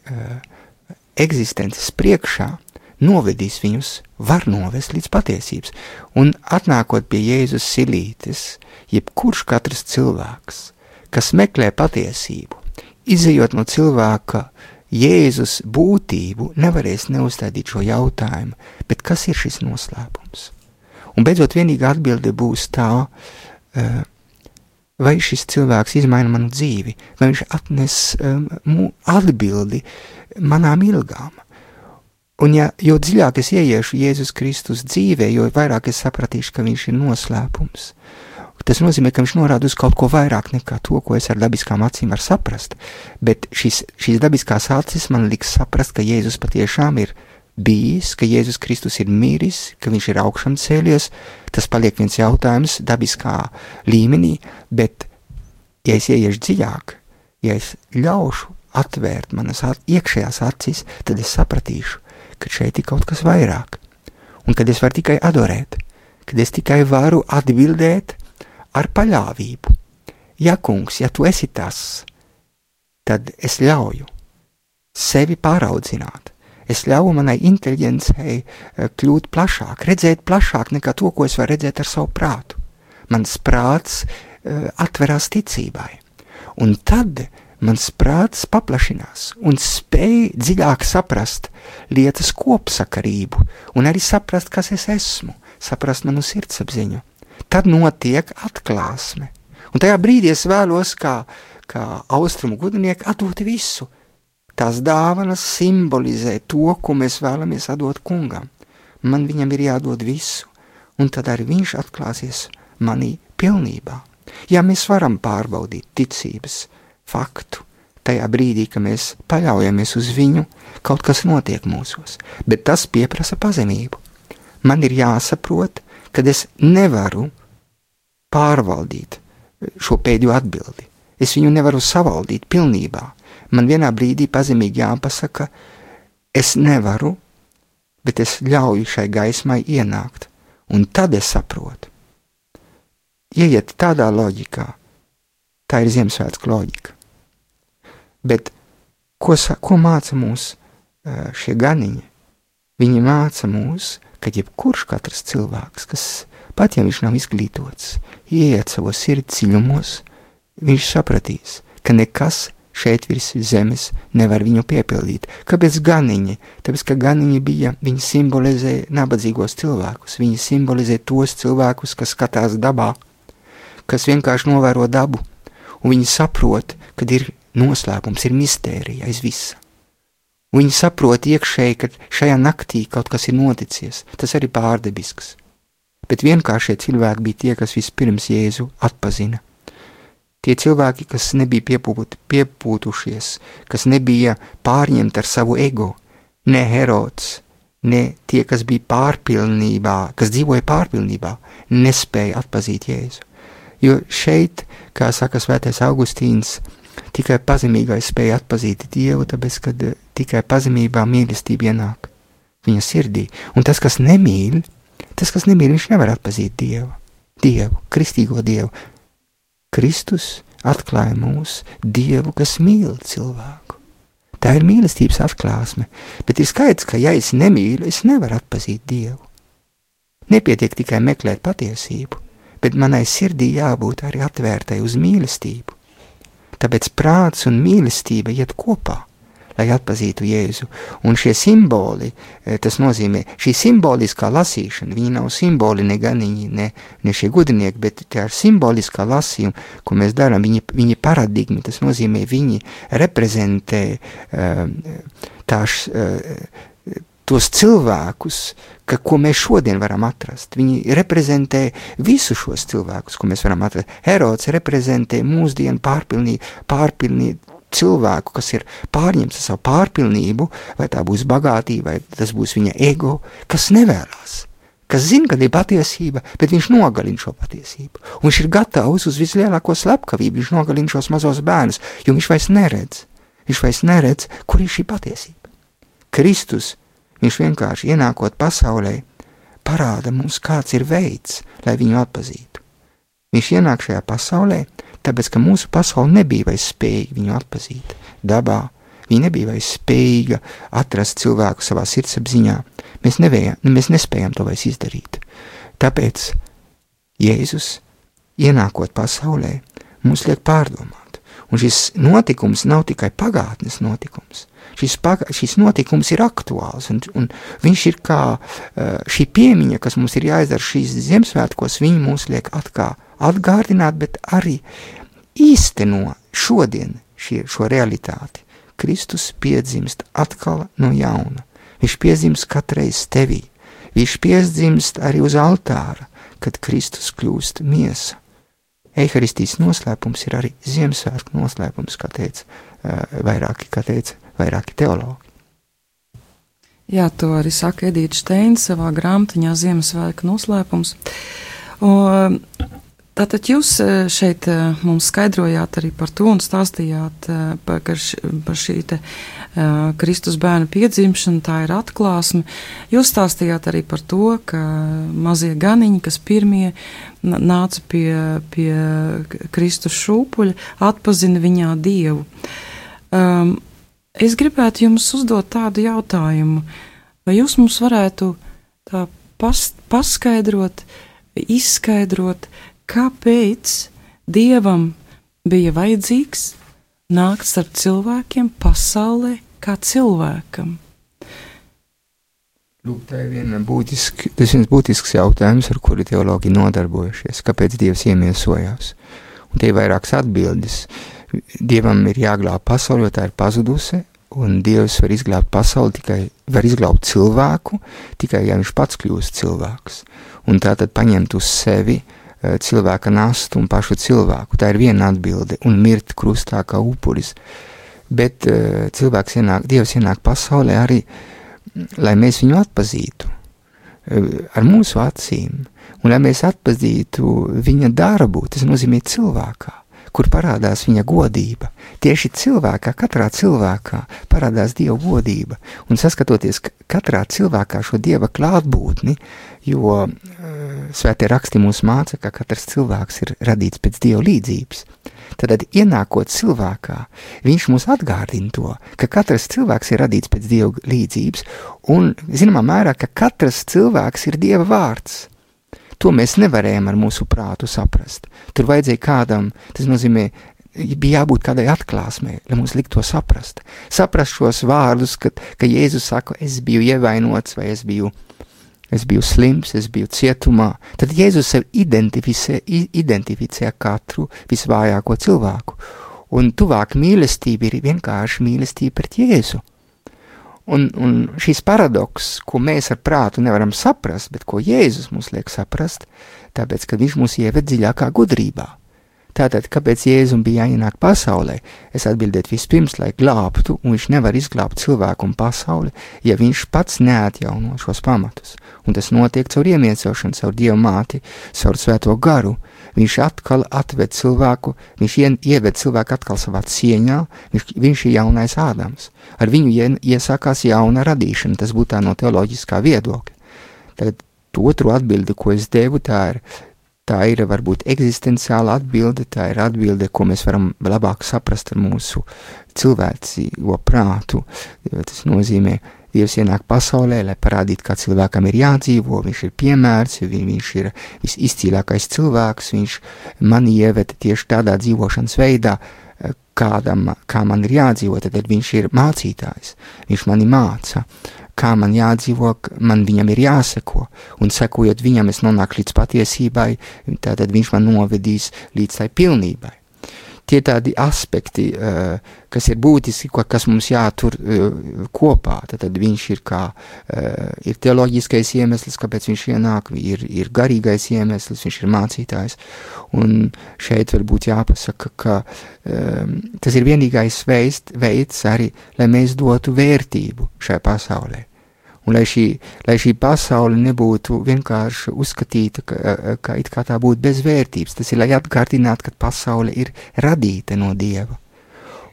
eksistences priekšā, novedīs viņus, var novest līdz patiesības. Un atnākot pie Jēzus silītes, jebkurš katrs cilvēks, kas meklē patiesību, izejot no cilvēka Jēzus būtību, nevarēs neuzstādīt šo jautājumu, bet kas ir šis noslēpums? Un beidzot vienīgā atbilde būs tā, vai šis cilvēks izmaina manu dzīvi, vai viņš atnes atbildi manām ilgām. Un jo dziļāk es ieiešu Jēzus Kristus dzīvē, jo vairāk es sapratīšu, ka viņš ir noslēpums. Tas nozīmē, ka viņš norāda uz kaut ko vairāk nekā to, ko es ar dabiskām acīm varu saprast, bet šīs dabiskās acis man liks saprast, ka Jēzus patiešām ir bijis, ka Jēzus Kristus ir miris, ka viņš ir augšām cēlies. Tas paliek viens jautājums dabiskā līmenī, bet ja es ieiešu dziļāk, ja es ļaušu atvērt manas iekšējās acis, tad es sapratīšu, ka šeit ir kaut kas vairāk, un kad es varu tikai adorēt, kad es tikai varu atbildēt ar paļāvību. Ja, kungs, ja tu esi tas, tad es ļauju sevi pāraudzināt. Es ļauju manai inteliģencei kļūt plašāk, redzēt plašāk nekā to, ko es varu redzēt ar savu prātu. Mans prāts atverās ticībai, un tad mans prāts paplašinās un spēj dziļāk saprast lietas kopsakarību un arī saprast, kas es esmu, saprast manu sirdsapziņu. Tad notiek atklāsme. Un tajā brīdī es vēlos kā austrumu gudrinieki atdot visu. Tās dāvanas simbolizē to, ko mēs vēlamies atdot kungam. Man viņam ir jādod visu, un tad arī viņš atklāsies manī pilnībā. Ja mēs varam pārbaudīt ticības faktu, tajā brīdī, ka mēs paļaujamies uz viņu, kaut kas notiek mūsos, bet tas pieprasa pazemību. Man ir jāsaprot, kad es nevaru pārvaldīt šo pēdējo atbildi. Es viņu nevaru savaldīt pilnībā. Man vienā brīdī pazemīgi jāpasaka, es nevaru, bet es ļauju šai gaismai ienākt, un tad es saprotu. Ieiet tādā loģikā, tā ir Ziemassvētku loģika. Bet ko māca mūs šie ganiņi? Viņi māca mūs, ka jebkurš katrs cilvēks, kas pat ja viņš nav izglītots, ieiet savos sirds dziļumos, viņš sapratīs, ka nekas šeit virs zemes nevar viņu piepildīt. Kāpēc ganiņi? Tāpēc, ka ganiņi viņi simbolizē nabadzīgos cilvēkus, viņi simbolizē tos cilvēkus, kas skatās dabā, kas vienkārši novēro dabu, un viņi saprot, kad ir noslēpums, ir mistērija aiz visa. Viņi saprot iekšēji, ka šajā naktī kaut kas ir noticies, tas arī pārdebisks. Bet vienkāršie cilvēki bija tie, kas vispirms Jēzu atpazina. Tie cilvēki, kas nebija piepūtušies, kas nebija pārņemti ar savu ego, ne Herods, ne tie, kas bija pārpilnībā, kas dzīvoja pārpilnībā, nespēja atpazīt Jēzu. Jo šeit, kā saka svētais Augustīns, tikai pazemīgais spēja atpazīt Dievu, tāpēc, kad tikai pazemībā mīlestība ienāk viņa sirdī. Un tas, kas nemīl, viņš nevar atpazīt Dievu, kristīgo Dievu, Kristus atklāja mūs Dievu, kas mīl cilvēku. Tā ir mīlestības atklāsme, bet ir skaidrs, ka ja es nemīlu, es nevaru atpazīt Dievu. Nepietiek tikai meklēt patiesību, bet manai sirdī jābūt arī atvērtai uz mīlestību. Tāpēc prāts un mīlestība iet kopā, lai atpazītu Jēzu. Un šie simboli, tas nozīmē, šī simboliskā lasīšana, viņi nav simboli ne ganiņi, ne šie gudrinieki, bet tā ir simboliskā lasījuma, ko mēs darām, viņi paradigmi, tas nozīmē, viņi reprezentē tos cilvēkus, ko mēs šodien varam atrast. Viņi reprezentē visu šos cilvēkus, ko mēs varam atrast. Herods reprezentē mūsdienu pārpilnību cilvēku, kas ir pārņemts ar savu pārpilnību, vai tā būs bagātība, vai tas būs viņa ego, kas nevēlās, kas zina, kad ir patiesība, bet viņš nogalina šo patiesību. Un viņš ir gatavs uz vislielāko slepkavību, viņš nogalina šos mazos bērnus, jo viņš vairs neredz, kur ir šī patiesība. Kristus, viņš vienkārši ienākot pasaulē, parāda mums, kāds ir veids, lai viņu atpazītu. Viņš ienāk šajā pasaulē, tāpēc, ka mūsu pasaule nebija vairs spējīga viņu atpazīt. Dabā viņa nebija vairs spējīga atrast cilvēku savā sirdsapziņā. Mēs nespējam to vairs izdarīt. Tāpēc Jēzus, ienākot pasaulē, mums liek pārdomāt. Un šis notikums nav tikai pagātnes notikums. Šis notikums ir aktuāls, un viņš ir kā šī piemiņa, kas mums ir jāizdara šīs Ziemassvētkos, viņi mūs liek atgādināt, bet arī īsteno šodien šo realitāti. Kristus piedzimst atkal no jauna. Viņš piedzimst katreiz tevī. Viņš piedzimst arī uz altāra, kad Kristus kļūst miesa. Eiharistijas noslēpums ir arī Ziemassvētku noslēpums, kā teica vairāki teologi. Jā, to arī saka Edīte Steina savā grāmatiņā Ziemassvētku noslēpums. Un tātad jūs šeit mums skaidrojāt arī par to un stāstījāt par šī te Kristus bērnu piedzimšanu, tā ir atklāsme. Jūs stāstījāt arī par to, ka mazie ganiņi, kas pirmie nāca pie Kristus šūpuļa, atpazina viņā Dievu. Es gribētu jums uzdot tādu jautājumu, vai jūs mums varētu tā paskaidrot, izskaidrot, kāpēc Dievam bija vajadzīgs nākt starp cilvēkiem pasaulē kā cilvēkam? Lūk, tā ir viens būtisks jautājums, ar kuru teologi nodarbojušies. Kāpēc Dievs iemiesojās? Un te ir vairākas atbildes. Dievam ir jāglāb pasauli, jo tā ir pazudusi, un Dievs var izglābt pasauli var izglābt cilvēku, tikai ja viņš pats kļūst cilvēks. Un tātad paņemt uz sevi cilvēka nastu un pašu cilvēku. Tā ir viena atbilde, un mirt krustā kā upuris. Bet Dievs ienāk pasaulē arī, lai mēs viņu atpazītu ar mūsu acīm, un lai mēs atpazītu viņa darbu, tas nozīmē cilvēkā, kur parādās viņa godība. Tieši cilvēkā, katrā cilvēkā parādās Dieva godība, un saskatoties katrā cilvēkā šo Dieva klātbūtni, jo svētie raksti mūs māca, ka katrs cilvēks ir radīts pēc Dieva līdzības. Tad, ienākot cilvēkā, viņš mūs atgādina to, ka katrs cilvēks ir radīts pēc Dieva līdzības, un, zināmā mērā, ka katrs cilvēks ir Dieva vārds. To mēs nevarējām ar mūsu prātu saprast. Tur vajadzēja kādam, tas nozīmē, bija jābūt kādai atklāsmei, lai mums likt to saprast. Saprast šos vārdus, ka Jēzus saka, es biju ievainots, vai es biju slims, es biju cietumā. Tad Jēzus sev identificē katru visvājāko cilvēku. Un tuvāk mīlestība ir vienkārši mīlestība pret Jēzu. Un šis paradoks, ko mēs ar prātu nevaram saprast, bet ko Jēzus mums liek saprast, tāpēc, ka viņš mūs ieved dziļākā gudrībā. Tātad, kāpēc Jēzum bija jāienāk pasaulē? Es atbildētu vispirms, lai glābtu, un viņš nevar izglābt cilvēku un pasauli, ja viņš pats neatjauno šos pamatus. Un tas notiek caur iemiesošanu, caur Dievu māti, caur svēto garu. Viņš atkal atved cilvēku, viņš ieved cilvēku atkal savā cieņā, viņš ir jaunais Ādams. Ar viņu iesākās jauna radīšana, tas būtu tā no teoloģiskā viedokļa. Tagad otru atbildi, ko es devu, tā ir tā ir varbūt eksistenciāla atbilde, tā ir atbilde, ko mēs varam labāk saprast ar mūsu cilvēcīgo prātu. Tas nozīmē, Dievs ienāk pasaulē, lai parādītu, kā cilvēkam ir jādzīvo, viņš ir piemērs, viņš ir visizcīlākais cilvēks, viņš mani ieveda tieši tādā dzīvošanas veidā, kā man ir jādzīvo, tad viņš ir mācītājs, viņš mani māca, kā man jādzīvo, man viņam ir jāseko, un sekojot viņam es nonāku līdz patiesībai, tātad viņš man novedīs līdz tai pilnībai. Tie tādi aspekti, kas ir būtiski, kas mums jātur kopā, tad viņš ir ir teoloģiskais iemesls, kāpēc viņš ienāk, ir garīgais iemesls, viņš ir mācītājs, un šeit varbūt jāpasaka, ka tas ir vienīgais veids arī, lai mēs dotu vērtību šajā pasaulē. Un lai šī pasaule nebūtu vienkārši uzskatīta, ka it kā tā būtu bez vērtības, tas ir, lai atgādinātu, ka pasaule ir radīta no Dieva,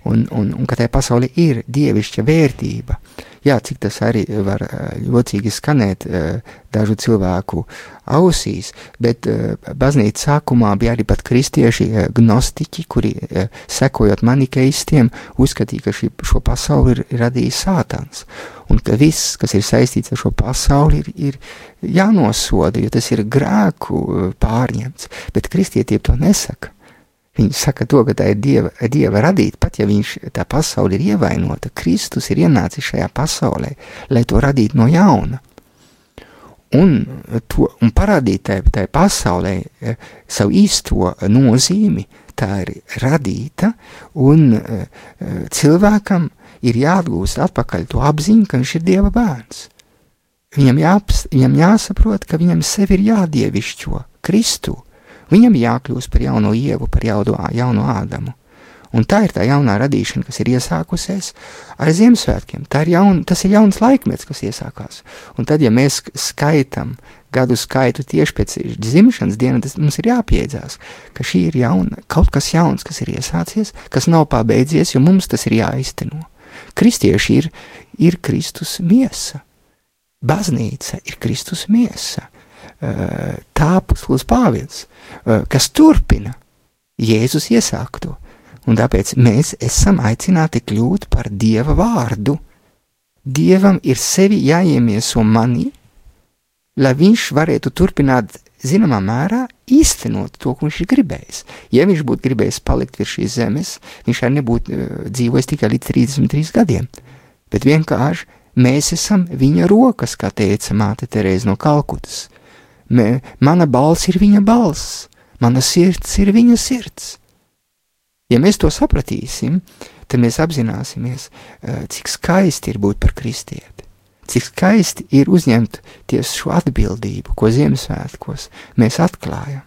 un ka tai pasaule ir dievišķa vērtība. Jā, cik tas arī var jocīgi skanēt dažu cilvēku ausīs, bet baznīca sākumā bija arī pat kristieši gnostiķi, kuri sekojot manikeistiem, uzskatīja, ka šo pasauli ir radījis Sātans, un ka viss, kas ir saistīts ar šo pasauli, ir jānosoda, jo tas ir grēku pārņemts, bet kristietība to nesaka. Viņi saka to, ka tā ir Dieva radīta, pat ja tā pasaule ir ievainota, Kristus ir ienācis šajā pasaulē, lai to radītu no jauna. Un parādīt tai pasaulē savu īsto nozīmi, tā ir radīta, un cilvēkam ir jāatgūst atpakaļ to apziņu, ka viņš ir Dieva bērns. Viņam jāsaprot, ka viņam sevi ir jādievišķo Kristu. Viņam jākļūst par jauno Ievu, par jauno Ādamu. Un tā ir tā jaunā radīšana, kas ir iesākusies ar Ziemassvētkiem. Tas ir jauns laikmets, kas iesākās. Un tad, ja mēs skaitam gadu skaitu tieši pēc dzimšanas dienas, tas mums ir jāpiedzās, ka šī ir kaut kas jauns, kas ir iesācies, kas nav pabeidzies, jo mums tas ir jāizteno. Kristieši ir Kristus miesa. Baznīca ir Kristus miesa. Tā apostols Pāvils, kas turpina Jēzus iesākto, un tāpēc mēs esam aicināti kļūt par Dieva vārdu. Dievam ir sevi jāiemieso manī, lai viņš varētu turpināt zināmā mērā īstenot to, ko viņš ir gribējis. Ja viņš būtu gribējis palikt virs šīs zemes, viņš arī nebūtu dzīvojis tikai līdz 33 gadiem, bet vienkārši mēs esam viņa rokas, kā teica māte Terēze no Kalkutas. Mana balss ir viņa balss, mana sirds ir viņa sirds. Ja mēs to sapratīsim, tad mēs apzināsimies, cik skaisti ir būt par kristieti, cik skaisti ir uzņemt tieši šo atbildību, ko Ziemassvētkos mēs atklājam.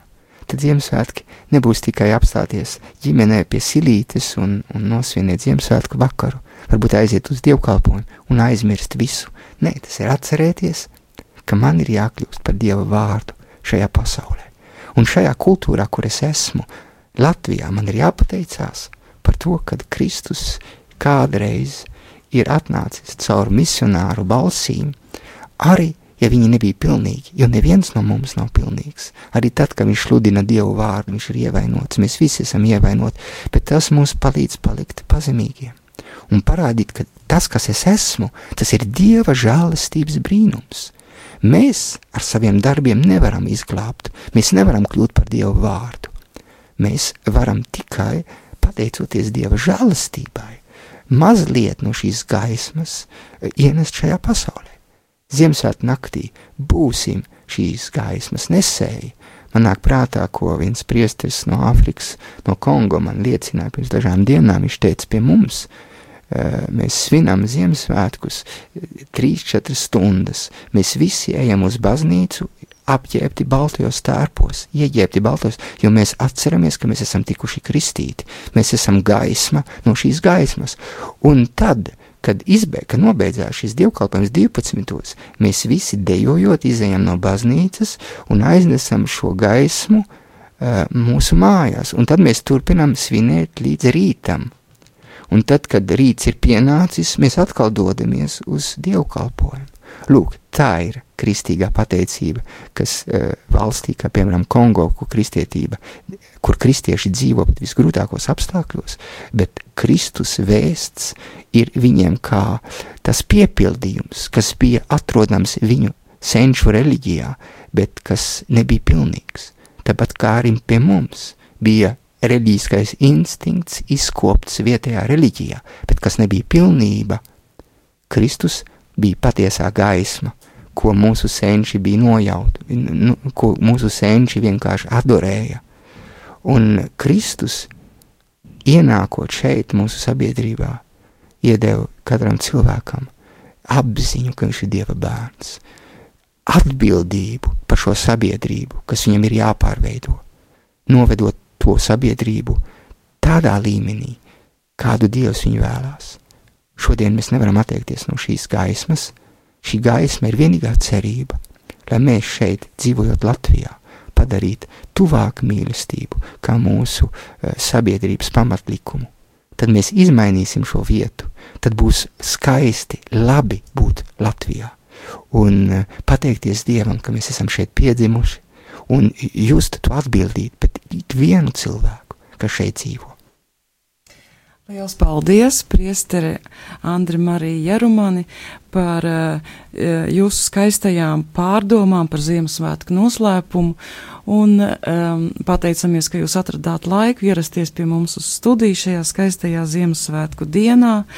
Tad Ziemassvētki nebūs tikai apstāties ģimenē pie silītes un nosvinēt Ziemassvētku vakaru, varbūt aiziet uz dievkalpojumu un aizmirst visu. Nē, tas ir atcerēties, ka man ir jākļūst par Dieva vārdu šajā pasaulē. Un šajā kultūrā, kur es esmu, Latvijā, man ir jāpateicās par to, kad Kristus kādreiz ir atnācis caur misionāru balsīm, arī, ja viņi nebija pilnīgi, jo neviens no mums nav pilnīgs. Arī tad, kad viņš sludina Dievu vārdu, viņš ir ievainots, mēs visi esam ievainoti, bet tas mums palīdz palikt pazemīgiem un parādīt, ka tas, kas es esmu, tas ir Dieva žēlastības brīnums. Mēs ar saviem darbiem nevaram izglābt, mēs nevaram kļūt par Dieva vārdu. Mēs varam tikai, pateicoties Dieva žēlastībai, mazliet no šīs gaismas ienest šajā pasaulē. Ziemassvētku naktī būsim šīs gaismas nesēji. Man nāk prātā, ko viens priesteris no Āfrikas, no Kongo man liecināja pirms dažām dienām, viņš teica pie mums, mēs svinam Ziemassvētkus 3-4 stundas. Mēs visi ejam uz baznīcu apģērbti baltajos tērpos, ieģērbti baltajos, jo mēs atceramies, ka mēs esam tikuši kristīti. Mēs esam gaisma no šīs gaismas. Un tad, kad nobeidzās šis dievkalpojums 12, mēs visi dejojot izejam no baznīcas un aiznesam šo gaismu mūsu mājās. Un tad mēs turpinām svinēt līdz rītam. Un tad, kad rīts ir pienācis, mēs atkal dodamies uz dievkalpojumu. Lūk, tā ir kristīgā pateicība, kas valstī, kā piemēram Kongo, kur kristieši dzīvo pat visgrūtākos apstākļos, bet Kristus vēsts ir viņiem kā tas piepildījums, kas bija atrodams viņu senču reliģijā, bet kas nebija pilnīgs. Tāpat kā arī pie mums bija reliģiskais instinkts izkopts vietējā reliģijā, bet kas nebija pilnība, Kristus bija patiesā gaisma, ko mūsu senči bija nojauti, ko mūsu senči vienkārši adorēja. Un Kristus, ienākot šeit mūsu sabiedrībā, iedeva katram cilvēkam apziņu, ka viņš ir Dieva bērns, atbildību par šo sabiedrību, kas viņam ir jāpārveido, novedot to sabiedrību tādā līmenī, kādu Dievs viņu vēlās. Šodien mēs nevaram atteikties no šīs gaismas. Šī gaisma ir vienīgā cerība, lai mēs šeit, dzīvojot Latvijā, padarītu tuvāk mīlestību kā mūsu sabiedrības pamatlikumu. Tad mēs izmainīsim šo vietu, tad būs skaisti, labi būt Latvijā. Un pateikties Dievam, ka mēs esam šeit piedzimuši, un just to atbildīt pret ikvienu cilvēku, kas šeit dzīvo. Liels paldies, priestere Andri Marija Jarumani, par jūsu skaistajām pārdomām par Ziemassvētku noslēpumu, un pateicamies, ka jūs atradāt laiku ierasties pie mums uz studiju šajā skaistajā Ziemassvētku dienā,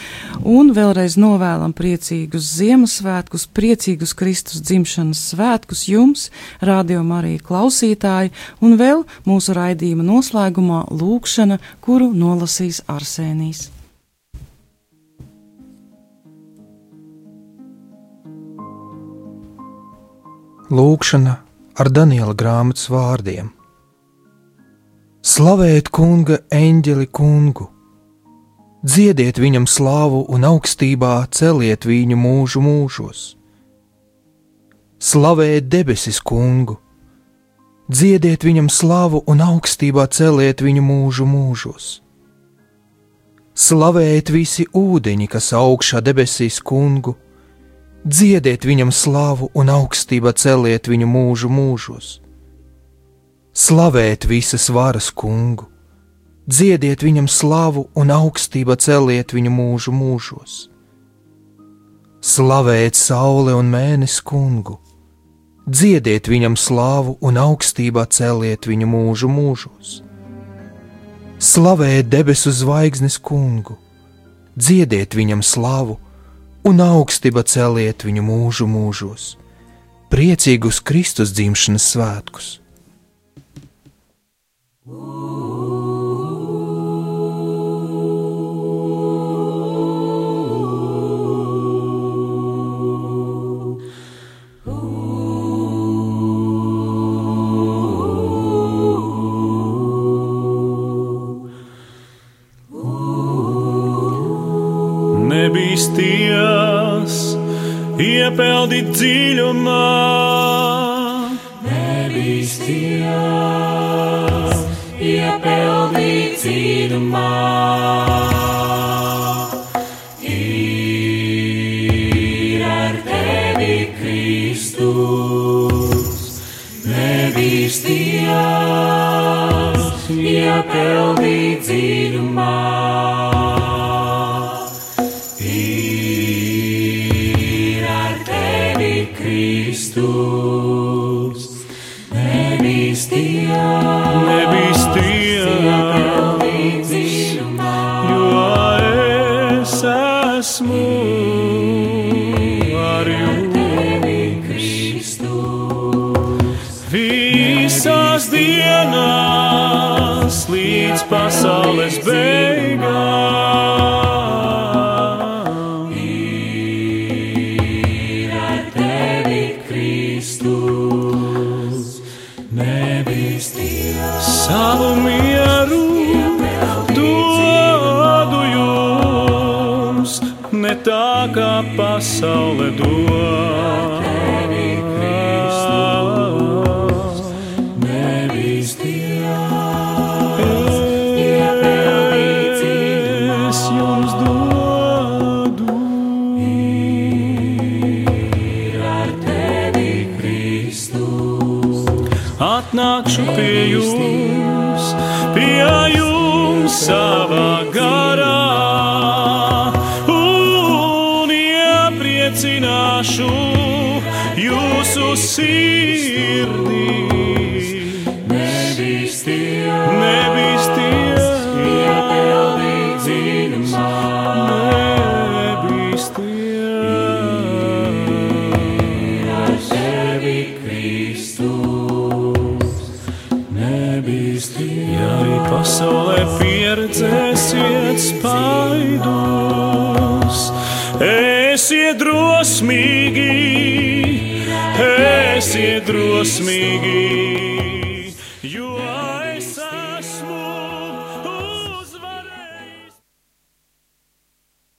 un vēlreiz novēlam priecīgus Ziemassvētkus, priecīgus Kristus dzimšanas svētkus jums, Radio Marija klausītāji, un vēl mūsu raidījuma noslēgumā lūkšana, kuru nolasīs Arsēnijs. Lūkšana ar Daniela grāmatas vārdiem. Slavēt kunga eņģeli kungu, dziediet viņam slāvu un augstībā celiet viņu mūžu mūžos. Slavēt debesis kungu, dziediet viņam slāvu un augstībā celiet viņu mūžu mūžos. Slavēt visi ūdeņi, kas augšā debesīs kungu, dziediet viņam slāvu un augstībā celiet viņu mūžu mūžos. Slavēt visas varas kungu, dziediet viņam slāvu un augstībā celiet viņu mūžu mūžos. Slavēt saule un mēnesi kungu, dziediet viņam slāvu un augstībā celiet viņu mūžu mūžos. Slavēt debesu zvaigznes kungu, dziediet viņam slāvu un augstībā celiet viņu mūžu mūžos. Priecīgus Kristus dzimšanas svētkus! Nebīsties, iepeldīt dziļumā. Nebīsties, iepeldīt dziļumā. Ir ar tevi Kristus. Nebīsties, iepeldīt dziļumā. Kristus, nebīsties, jo es esmu ar jums. Visās dienās līdz pasaules beigām. Savu mieru dodu jums, ne tā kā pasaule dod. Es jums ja jums savā garā, un iepriecināšu jūsu sirdī. Nebīsties, iepeldīt dziļumā, nebīsties, tevi Kristus, nebīsties. Ja arī pasaulē pieredzēsiet spaidus, esiet drosmīgi, jo